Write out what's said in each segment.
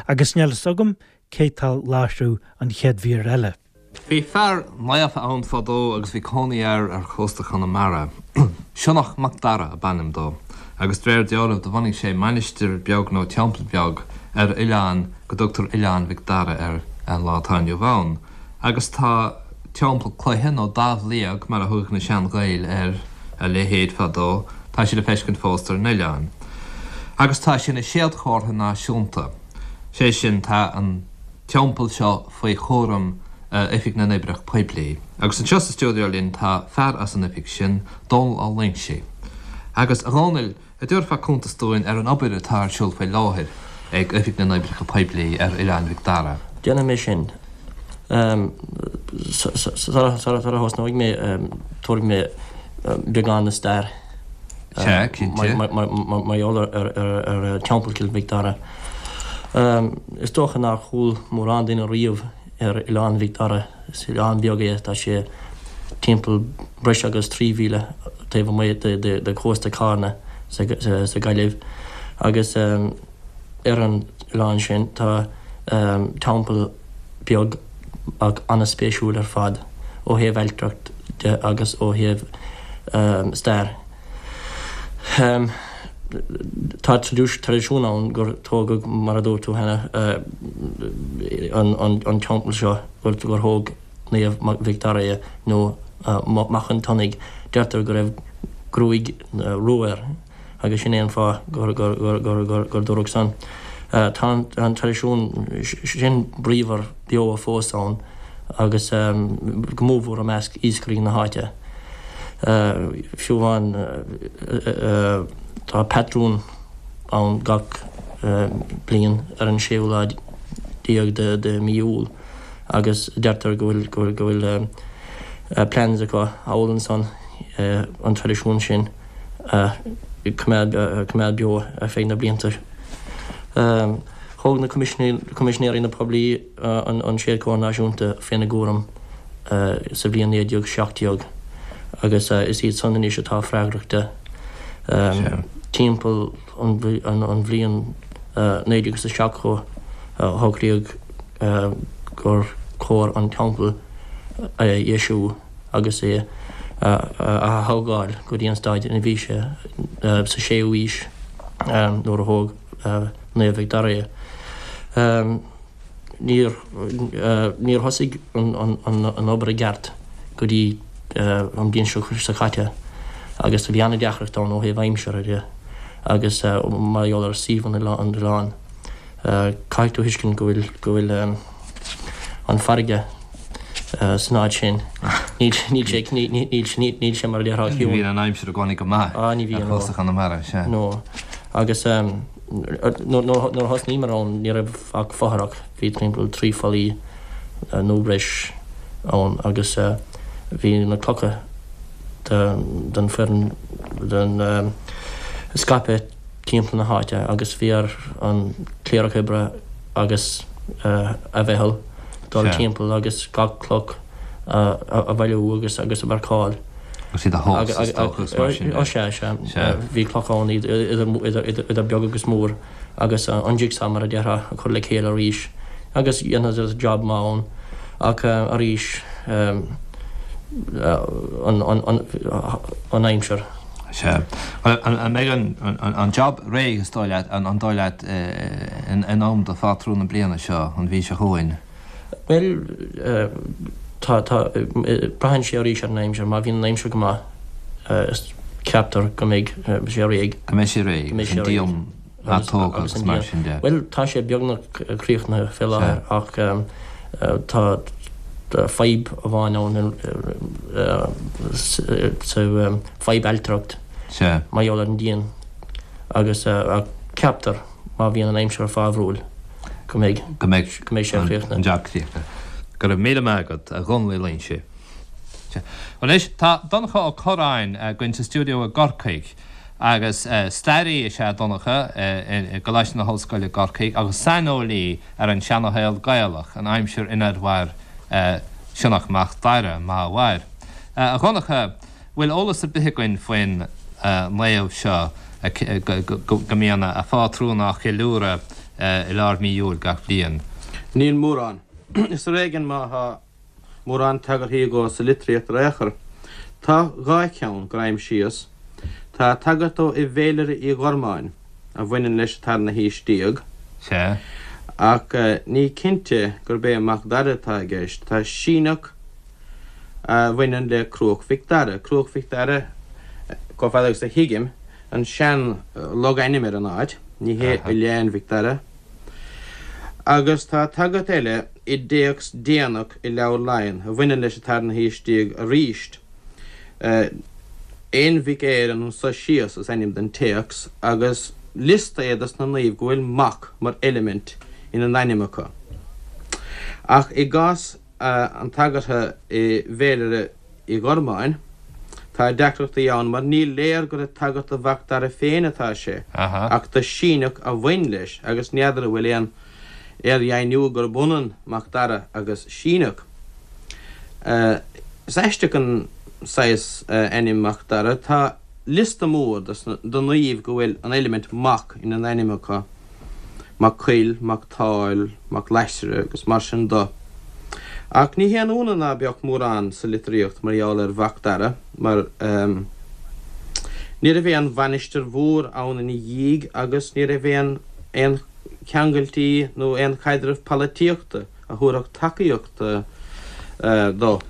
Agus níl fhios agam cé tá láithriú an chéad mhír eile. Bhí fear naofa ann fadó agus bhí cónaí air ar chósta Chonamara. Sionnach Mac Dara ab ainm dó, agus de réir dealraimh do bhunaigh sé mainistir beag nó teampall beag ar oileán go dtugtar Oileán Mhic Dara air an lá atá inniu ann. Agus tá teampall cloiche nó Damh Liag mar a thugadh na sean-Ghaeil ar a leithéid fadó, tá sé le feiscint fós ar an oileán. Agus tá sé ina séadchomhartha náisiúnta. Sé sin, tá an teampall seo faoi chúram Oifig na nOibreacha Poiblí. Agus anseo sa stiúideo linn tá fear as an oifig sin, Dónal Ó Loingsigh. Agus, a Dhónaill, a' dtabharfá cuntas dúinn ar an obair atá ar siúl faoi láthair ag Oifig na nOibreacha Poiblí ar Oileán Mhic Dara? Déanfaidh mé sin. Sara thosnóidh mé, tabharfaidh mé beagán de stair. Sea, cinnte. Mar gheall ar Teampall Chill Mhic Dara. Is dócha nár chuala mórán duine riamh ar Oileán Mhic Dara. Is oileán beag é, tá sé timpeall breis agus 3 mhíle taobh amuigh de chósta Charna sa Ghaillimh agus ar an oileán sin tá teampall beag ach an-spéisiúil ar fad ó thaobh ailtireacht de agus ó thaobh stair. Tá traidisiún ann gur tógadh, mar a dúirt tú cheana, an teampall seo, gur thóg Naomh Mhic Dara é, nó Mac an tSionnaigh. Deirtear go raibh gruaig rua air agus sin é an fáth gur dúradh san. Tá an traidisiún sin bríomhar beo fós ann agus go mórmhór i measc iascairí na háite. Fiú amháin tá patrún ann gach bliain ar an séú lá déag de mí Iúil agus deirtear go bhfuil go bhfuil plans acu thall ansan an traidisiún sin a choimeád beo ar feadh na blianta. Thóg na Coimisinéirí na Poiblí an Séadchomhartha Náisiúnta faoina gcúram sa bhliain 1917 agus is iad san anois atá freagrach de. Timpeall an bhliain 1970 shocraíodh gur chóir an teampall a dheisiú agus é a ath-thógáil go dtí an staid ina bhí sé sa 6ú aois nuair a thóg Naomh Mhic Dara é. Níor níor thosaigh an obair i gceart go dtí an bhliain seo caite agus bhí an-deacracht ann ó thaobh aimsire de agus mar gheall ar suíomh an oileáin. Caithfidh tú a thuiscint go bhfuil go bhfuil an farraige san áit sin. Níl níl sé níl sé mar a déarfá ciúin. Ní bhíonn an aimsir i gcónaí go maith ar chósta Chonamara, sea. No. Agus nuair a thosnaíomar ann ní raibh ach fothrach, bhí timpeall 3 fallaí nó breis ann agus bhí na clocha den foireann den scaipthe timpeall na háite agus bhí ar an cléireach oibre agus a mheitheal dul timpeall agus gach cloch a bhailiú agus agus a mharcáil. Agus iad a thomhas, is dócha, agus mar sin de. Ó sea, sea. Bhí clocha ann idir beag agus mór agus an jigsaw, mar a déarfá, a chur le chéile arís agus dhéanadar job maith ann ach arís an aimsir. Sea. An mbeidh an job réidh, is dóigh leat, an dóigh leat, in am do phátrún na bliana seo, an mhí seo chugainn? Bhuel, tá, tá, braitheann sé arís ar an aimsir. Má bhíonn an aimsir go maith, ceaptar go mbeidh sé réidh. Go mbeidh sé réidh, agus an díon atógtha agus mar sin de. Bhuel, tá sé beagnach críochnaithe fé láthair ach tá fadhb amháin ann, sa fadhb ailtireacht mar gheall ar an díon agus ceaptar má bhíonn an aimsir fábhrúil go mbeidh go mbeidh go mbeidh sé críochnaithe. An jab críochnaithe. Go raibh míle maith agat, a Dhónaill Uí Loingsigh. Anois, tá Donncha Ó Corráin againn sa stiúideo i gCorcaigh agus staraí is ea Donncha i gColáiste na hOllscoile i gCorcaigh agus saineolaí ar an seanashaol Gaelach, an aimsir inar mhair Sionnach Mac Dara, má mhair. A Dhonncha, bhfuil eolas ar bith againn faoin naomh seo go mbíonn a phátrún á cheiliúradh? I lár mí Iúil gach bliain. Níl mórán. Is ar éigean má thá mórán tagarthaí dhó sa litríocht ar aon chor. Tá dha cheann gur aimsíos. Tá tagairt dó i bhFéilire Uí Ghormáin, a bhaineann leis an tarna haois déag. Sea. Ach ní cinnte gurb é Mac Dara atá i gceist. Tá Síneach a bhaineann le Cruach Mhic Dara. Cruach Mhic Dara, chomh fada agus a thuigim, an sean-logainm ar an áit, ní hé Oileán Mhic Dara. Agus tá tagairt eile i dtéacs déanach i Leabhar Laighean a bhaineann leis an tarna haois déag arís. Aon Mhic Éireann anso síos is ainm don téacs agus liosta é dos na naoimh go bhfuil 'Mac' mar eilimint ina n-ainm acu. Ach i gcás an tagartha i bhFéilire Uí Ghormáin, tá deacrachtaí ann mar ní léir gur ag tagairt do Mhac Dara féin atá sé, ach do Síneach a bhain leis agus n'fheadar an bhfuil aon fhíordheimhniú gurb ionann Mac Dara agus Síneach. Is aisteach an saghas ainm Mac Dara. Tá liosta mór de naoimh go bhfuil an eilimint 'Mac' ina n-ainm acu. Mac Coill, Mac Táil, Mac Laisre agus mar sin do. Ach ní haon ionadh ná beadh mórán sa litríocht mar gheall ar Mhac Dara mar ní raibh aon mhainistir mhór ann ina dhiaidh agus ní raibh aon aon cheangailtí nó aon chaidreamh polaitíochta a thabharfadh tacaíocht dó.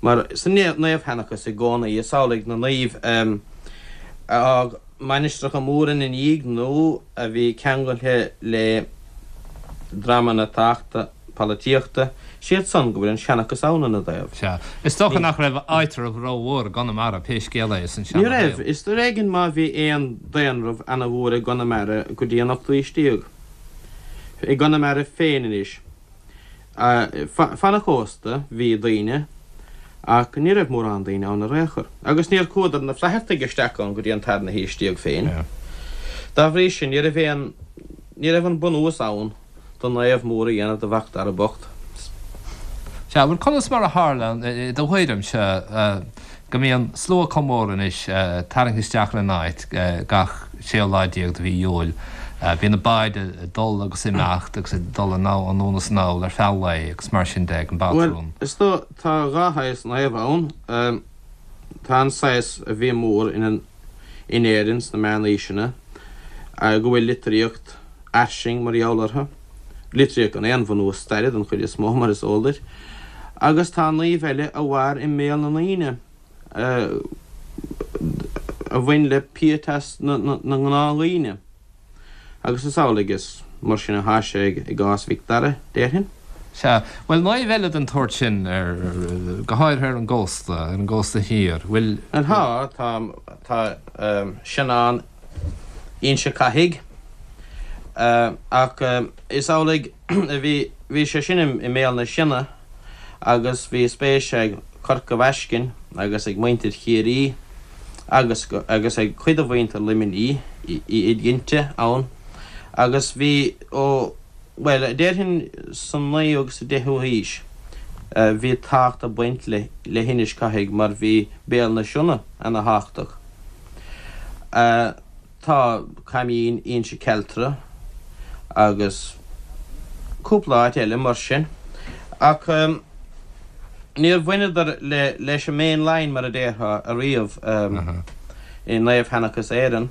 Mar sa naomhsheanchas i gcónaí is amhlaidh na naoimh a fhág mainistreacha móra ina ndiaidh nó a bhí ceangailte le dreamanna tábhachtacha polaitíochta, siad san go bhfuil an seanchas ann ina dtaobh. Sea. Is dócha nach raibh áitreabh rómhór i gConamara pé scéal é san Ní raibh. Is ar éigean má bhí aon daonramh ana-mhór i gConamara go dtí an ochtú haois déag. I gConamara féin anois. Fan an chósta bhí daoine ach ní raibh mórán daoine ann ar aon chor. Agus níor chuadar na Flaitheartaigh isteach ann go dtí an tarna haois déag féin. Dá bhrí sin ní raibh aon, ní raibh an bunús ann do naomh mór a dhéanamh de Mhac Dara bocht. Sea, bhuel conas mar a tharla, i do thuairimse, go mbíonn slua chomh mór anois tarraingthe isteach ar an áit gach séú lá déag de mhí Iúil. Bíonn na báid ag dul agus ag imeacht agus ag dul anonn is anall ar feadh lae agus mar sin de ag an Bhuel, bpátrún. is dóigh, tá dhá shaghas naomh ann. Tá an saghas a bhí mór in in Éirinn sna meánaoiseanna, go bhfuil litríocht fhairsing mar gheall orthu, litríocht gan aon bhunús staire den chuid is mó, mar is eol duit, agus tá naoimh eile a mhair i mbéal na ndaoine, a bhain le pietas na ngnáthdhaoine. Agus is amhlaidh is mar sin atá sé i gcás Mhic Dara, déarfainn. Sea. Bhuel, naoimh eile den tsórt sin, ar, go háirithe ar an gcósta, ar an gcósta thiar, bhfuil. Tá, tá, tá Seanán Inse Cathaigh, ach is amhlaidh a bhí, bhí sé sin i mBéal na Sionna agus bhí spéis ag Corca Bhaiscinn agus ag muintir Chiarraí agus agus ag cuid de mhuintir Luimnigh, iad cinnte, ann agus bhí ó, bhuel, déarfainn sa naoú agus sa deichiú haois bhí tábhacht ag baint le le hInis Cathaigh mar bhí Béal na Sionna ana thábhachtach. Tá Caimín Inse Cealtra agus cúpla áit eile mar sin ach níor bhaineadar leis an main line mar a déarfá ariamh i naomhsheanchas Éireann.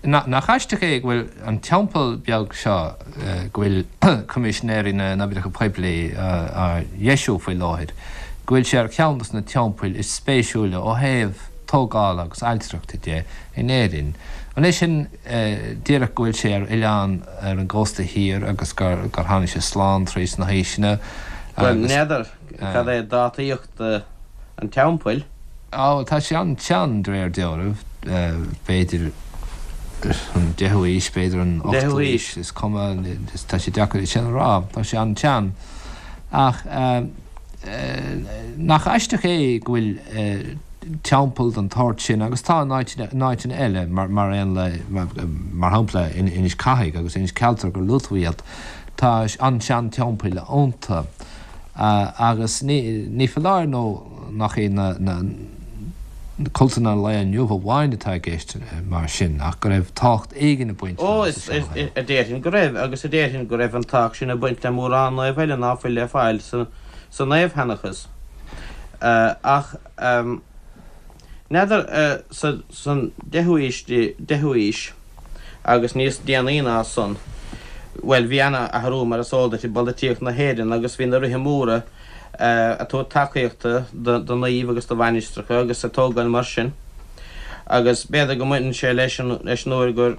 Nach aisteach é go bhfuil an teampall beag seo go bhfuil Coimisinéirí na nOibreacha Poiblí á dheisiú faoi láthair, go bhfuil sé ar cheann dos na teampaill is spéisiúla ó thaobh tógála agus ailtireachta de in Éirinn. An é sin díreach go bhfuil sé ar oileán ar an gcósta thiar agus gur tháinig sé slán tríd na haoiseanna Bhuel, n'fheadar cad é dátaíocht an teampaill. Á, tá sé an-tsean de réir dealraimh, b'fhéidir an deichiú haois, b'fhéidir an ochtú haois, is cuma, tá sé deacair é sin a rá, tá sé an-tsean. Ach nach aisteach é go bhfuil teampall den tsórt sin, agus tá in áiteanna eile, mar aon le, mar shampla, in Inis Cathaigh agus Inis Cealtra gur luaigh tú iad, tá an-sean-teampaill iontu. Agus ní foláir nó nach iad na. Cultanna an lae inniu amháin atá i gceist mar sin, ach go raibh tábhacht éigin ag baint leo sa seanchaint. Ó, a déarfainn go raibh, agus a déarfainn go raibh an tábhacht sin ag baint le mórán naomh eile ná fuil le fáil sa naomhsheanchas. Ach n'fheadar, san deichiú haois, deichiú haois agus níos déanaí ná san, bhuel, bhí ana-athrú, mar is eol duit, i bpolaitíocht na hÉireann agus bhí na ríthe móra, ag tabhairt tacaíochta do naoimh agus do mhainistreacha agus ag tógáil mar sin agus b'fhéidir go mbaineann sé leis an leis an uair gur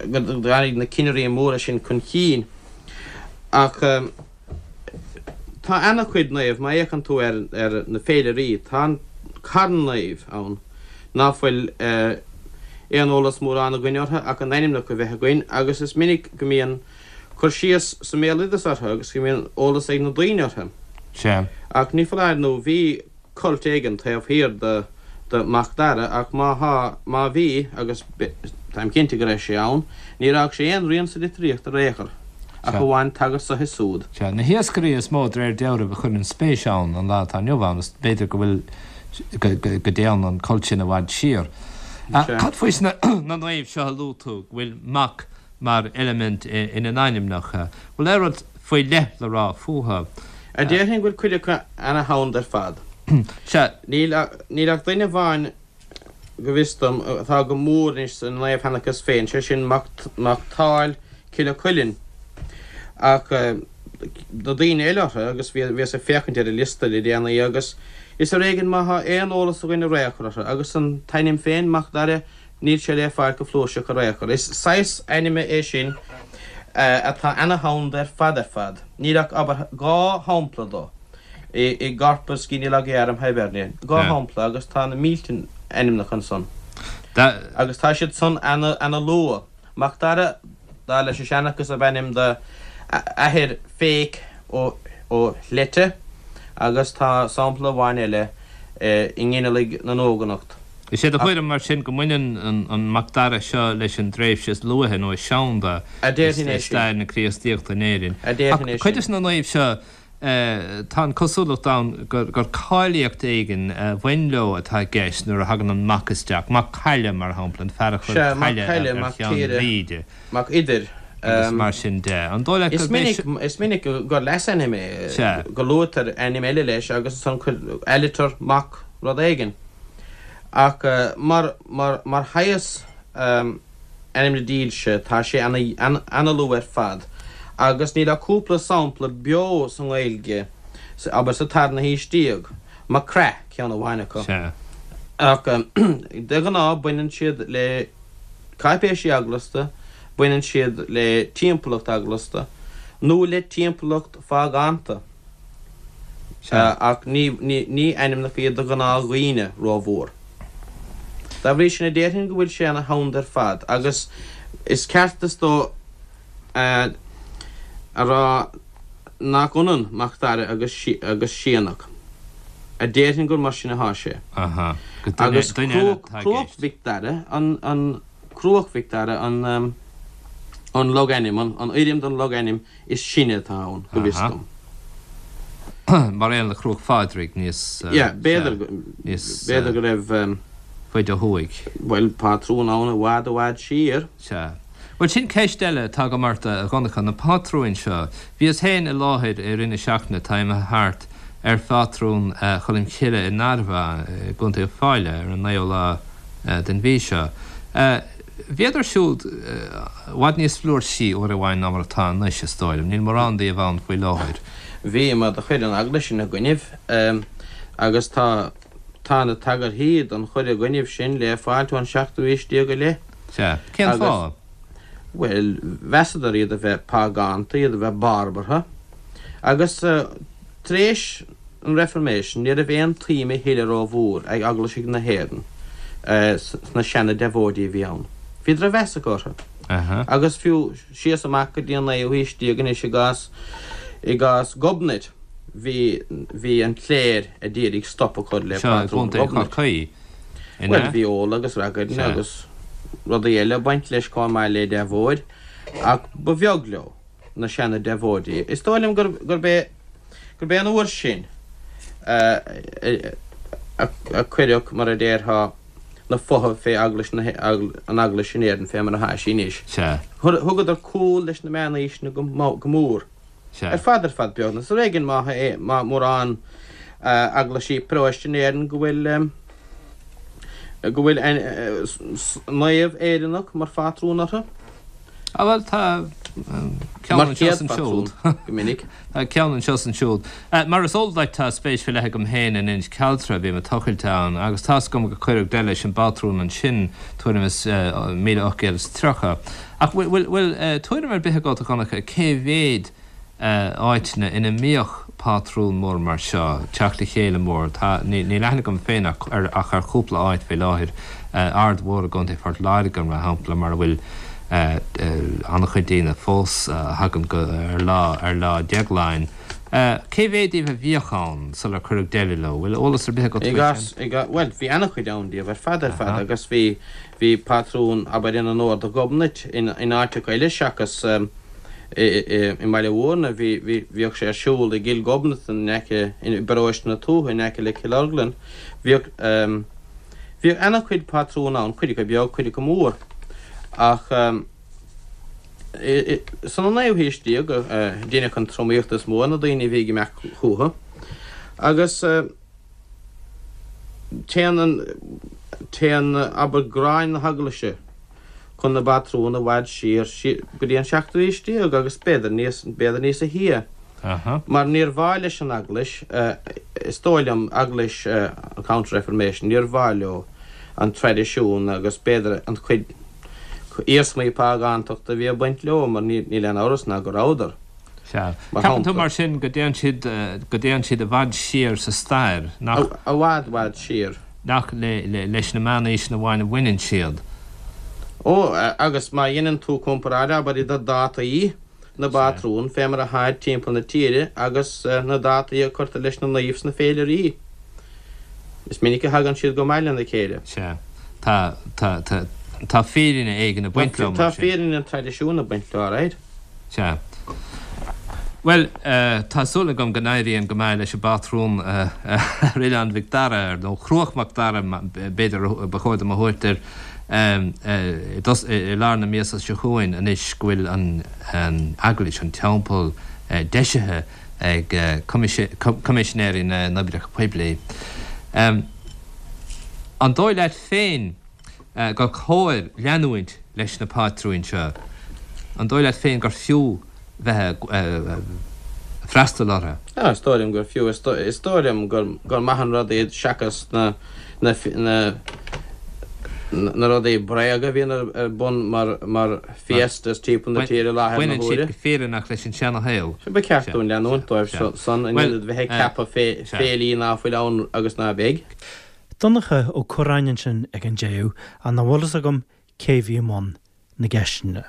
go dtáinig na cinnirí móra sin chun chinn. Ach tá ana-chuid naomh, má fhéachann tú ar ar na féilirí, tá carn naomh ann ná fuil aon eolas mórán againn orthu ach a n-ainmneacha a bheith againn agus is minic go mbíonn cur síos sa mbéaloideas orthu agus go mbíonn eolas ag na daoine orthu. Sea. Ach ní foláir nó bhí cult éigin taobh thiar de de Mac Dara ach má thá, má bhí, agus táim cinnte go raibh sé ann, níor fhág sé aon rian sa litríocht ar aon chor, ach amháin tagairt so is siúd. Sea. Na hiascairí is mó de réir dealraimh a chuireann spéis ann an lá atá inniu ann is b'fhéidir go bhfuil, go, go, go dtéann an cult sin i bhfad siar. Sea. Cad faoi sna, na naoimh seo a luaigh tú, go bhfuil Mac mar eilimint ina n-ainmneacha. Bhfuil aon rud faoi leith le rá fúthu? A déarfainn go bhfuil cuid acu ana-sheanda ar fad. Sea. Níl níl ach duine amháin, go bhfios dom, atá go mór anois sa naomhsheanchas féin, sé sin Mac Mac Táil Cille Cuilinn. Ach na daoine eile orthu, agus bhíos ag féachaint ar an liosta le déanaí, agus is ar éigean má thá aon eolas againn ar aon chor orthu. Agus an t-ainm féin, Mac Dara, Níl sé le fáil go flúirseach ar aon chor. Is saghas ainme é sin atá ana-sheanda ar fad ar fad. Níl ach, abair, 2 shampla do i gCorpus Genealogiarum Hiberniae. 2 shampla agus tá na mílte ainmneacha ansan. Agus tá siad san ana-luath. Mac Dara, dar leis an seanchas, ab ainm do athair Féich ó Shlette agus tá sampla amháin eile i nGinealaigh na nEoghanacht. Is é do thuairim, mar sin, go mbaineann an Mac Dara seo leis an dtréimhse is luaithe nó is seanda i stair na Críostaíochta in Éirinn. Ach cuid de na naoimh seo, tá an cosúlacht ann gur cáilíocht éigin a bhain leo atá i gceist nuair a thagann an Mac isteach, Mac Caille, mar shampla, an fear a chuir caille ar Cheann Mhíde. Mac Uidhir. Agus mar sin de. An dóigh leat gurb é seo. Is minic gur leasainm é, go luaitear ainm eile leis agus ansan aliter Mac rud éigin. Ach mar, mar, mar shaghas ainmne dílse, tá sé ana-luath ar fad agus níl ach cúpla sampla beo sa nGaeilge, abair sa tarna haois déag, Mac Craith ceann amháin acu. Ach de ghnáth baineann siad le cáipéisí eaglasta, baineann siad le timpeallacht eaglasta nó le timpeallacht phágánta. Ach ní ainmneacha iad do ghnáthdhaoine rómhór. Dá bhrí sin, déarfainn go bhfuil sé ana sheanda ar fad agus is ceart is dóigh a rá nach ionann Mac Dara agus Sionnach. A déarfainn gur mar sin atá sé. Agus Cruach Mhic Dara an Cruach Mhic Dara an logainm, an fhoirm den logainm is sine atá ann, go bhfios dom. Mar aon le Cruach Phádraig níos. Yeah, b'fhéidir, b'fhéidir go raibh. faide ó thuaidh. Bhuel, pátrún ann i bhfad i bhfad siar. Sea. Bhuel, sin ceist eile atá agam ort, a Dhonncha, na pátrúin seo. Bhíos féin i láthair i rith na seachtaine atá imithe thart ar phátrún Cholm Chille i nDarmhagh i gContae Uíbh Fhailí ar an naoú lá den mhí seo. Bhíodar siúd i bhfad níos flúirsí uair amháin ná mar atá anois, is dóigh liom. Níl mórán díobh ann faoi láthair. Bhí, mar do chuir an Eaglais ina gcoinnibh, agus tá, tá na tagarthaí don chur i gcoinnibh sin le fáilt ón seachtú haois déag i leith. Sea. Cén fáth? Bhuel, mheasadar iad a bheith págánta, iad a bheith barbartha, agus tar éis an Reformation ní raibh aon tsuim a thuilleadh rómhór ag eaglaisigh na hÉireann sna seana-deabhóidí a bhí ann. Bhí drochmheas acu orthu. Agus fiú síos amach go dtí an naoú haois déag anois i gcás i gcás Ghobnait bhí bhí an chléir a d'iarraidh stop a chur le Seo i pátrún gContae Ghobnait. Chorcaí, an Bhuel ea? bhí ól agus ragairne agus rudaí eile ag baint leis chomh maith le deabhóid ach ba bheag leo. na seana-deabhóidí. Is dóigh liom gurb é gurb é an uair sin a. a cuireadh, mar a déarfá, na fotha fé Eaglais na, an Eaglais in Éirinn fé mar atá sí anois. Sea. Thugadar cúl leis na meánaoiseanna go mór. Sea. Ar fad ar fad beagnach. Is ar éigean má tá mórán eaglaisí paróiste in Éirinn go bhfuil go bhfuil naomh Éireannach mar phátrún orthu. Ah bhuel tá ceann anseo is ansiúd. Go minic. Tá ceann anseo is ansiúd. Mar is eol duit tá spéis faoi leith agam féin in Inis Cealtra, bím ag tochailt ann, agus tá's agam gur cuireadh deireadh leis an bpátrún ansin tuairim is 1830. Ach bhfuil bhfuil tuairim ar bith agat, a Dhonncha, cé mhéad áiteanna ina mbíodh pátrún mór mar seo, teacht le chéile mór? Tá, níl aithne agam féin ach ar ach ar chúpla áit faoi láthair, Aird Mhór i gContae Phort Láirge, mar shampla, mar a bhfuil an-chuid daoine fós a thagann go ar lá ar Lá Déagláin. Cé mhéad díobh a bhíodh ann sular cuireadh deireadh leo? Bhfuil eolas ar bith agat faoi sin? Bhuel, bhí an-chuid ann díobh ar fad ar fad agus bhí Bhí patrún, abair, in onóir do Ghobnait in áiteacha eile seachas i mBaile Mhúirne. Bhí, bhíodh sé ar siúl i gCill Ghobnatan in aice, i bparóiste na Tuaithe in aice le Cill Orglan. Bhíodh, bhíodh ana-chuid patrún ann, cuid acu beag, cuid acu mór. Ach san naoú haois déag a deineadh an tromaíocht is mó ar na daoine a bhí ag imeacht chucu agus, Téann an, téann, abair, gráin na hEaglaise chun na bpatrún i bhfad siar, siar go dtí an seachtú haois déag agus b'fhéidir níos, b'fhéidir níosa shia. Mar níor mhaith leis an Eaglais, is dóigh liom, Eaglais an Counter-Reformation, níor mhaith leo an traidisiún agus b'fhéidir an chuid iarsmaí págántachta a bhí ag baint leo mar níl aon amhras ná go rabhadar. Sea. Ceapann tú mar sin go dtéann siad, go dtéann siad i bhfad siar sa stair, nach. I bhfad, bhfad siar. Nach le, le, leis na meánaoiseanna amháin a bhaineann siad. Ó, agus má dheineann tú comparáid, abair, idir dátaí na bpátrún fé mar atháid timpeall na tíre agus na dátaí a cuirtear leis na naoimh sna féilirí, is minic a thagann siad go maith lena chéile. Sea. Tá, tá, tá, tá fírinne éigin ag baint leo, mar sin. Tá fírinne an traidisiúin ag baint leo, alright. Sea. Bhuel, tá súil agam go n-éiríonn go maith leis an bpátrún ar Oileán Mhic Dara, nó Cruach Mhac Dara, b'fhéidir ba chóir dom a thabhairt air, i lár na míosa seo chugainn anois go bhfuil an eaglais, an teampall, deisithe ag Coimisinéirí na nOibreacha Poiblí. An dóigh leat féin gur chóir leanúint leis na pátrúin seo? An dóigh leat féin gur fiú bheith ag freastal orthu? Á, is dóigh liom gur fiú. Is dóigh liom gur maith an rud iad seachas na na na rudaí bréaga a bhíonn ar bun mar mar fiestas timpeall na tíre i láthair na huaire. Baineann siad go fírinneach leis an seana-shaol. Ba cheart dúinn leanúint dóibh san in ionad bheith ag ceapadh féilí ná fuil ann agus ná beidh. Donncha Ó Cuirreáin ansin ag an deireadh, ach nach bhfuil fhios agam cé bhí i mbun na gceisteanna.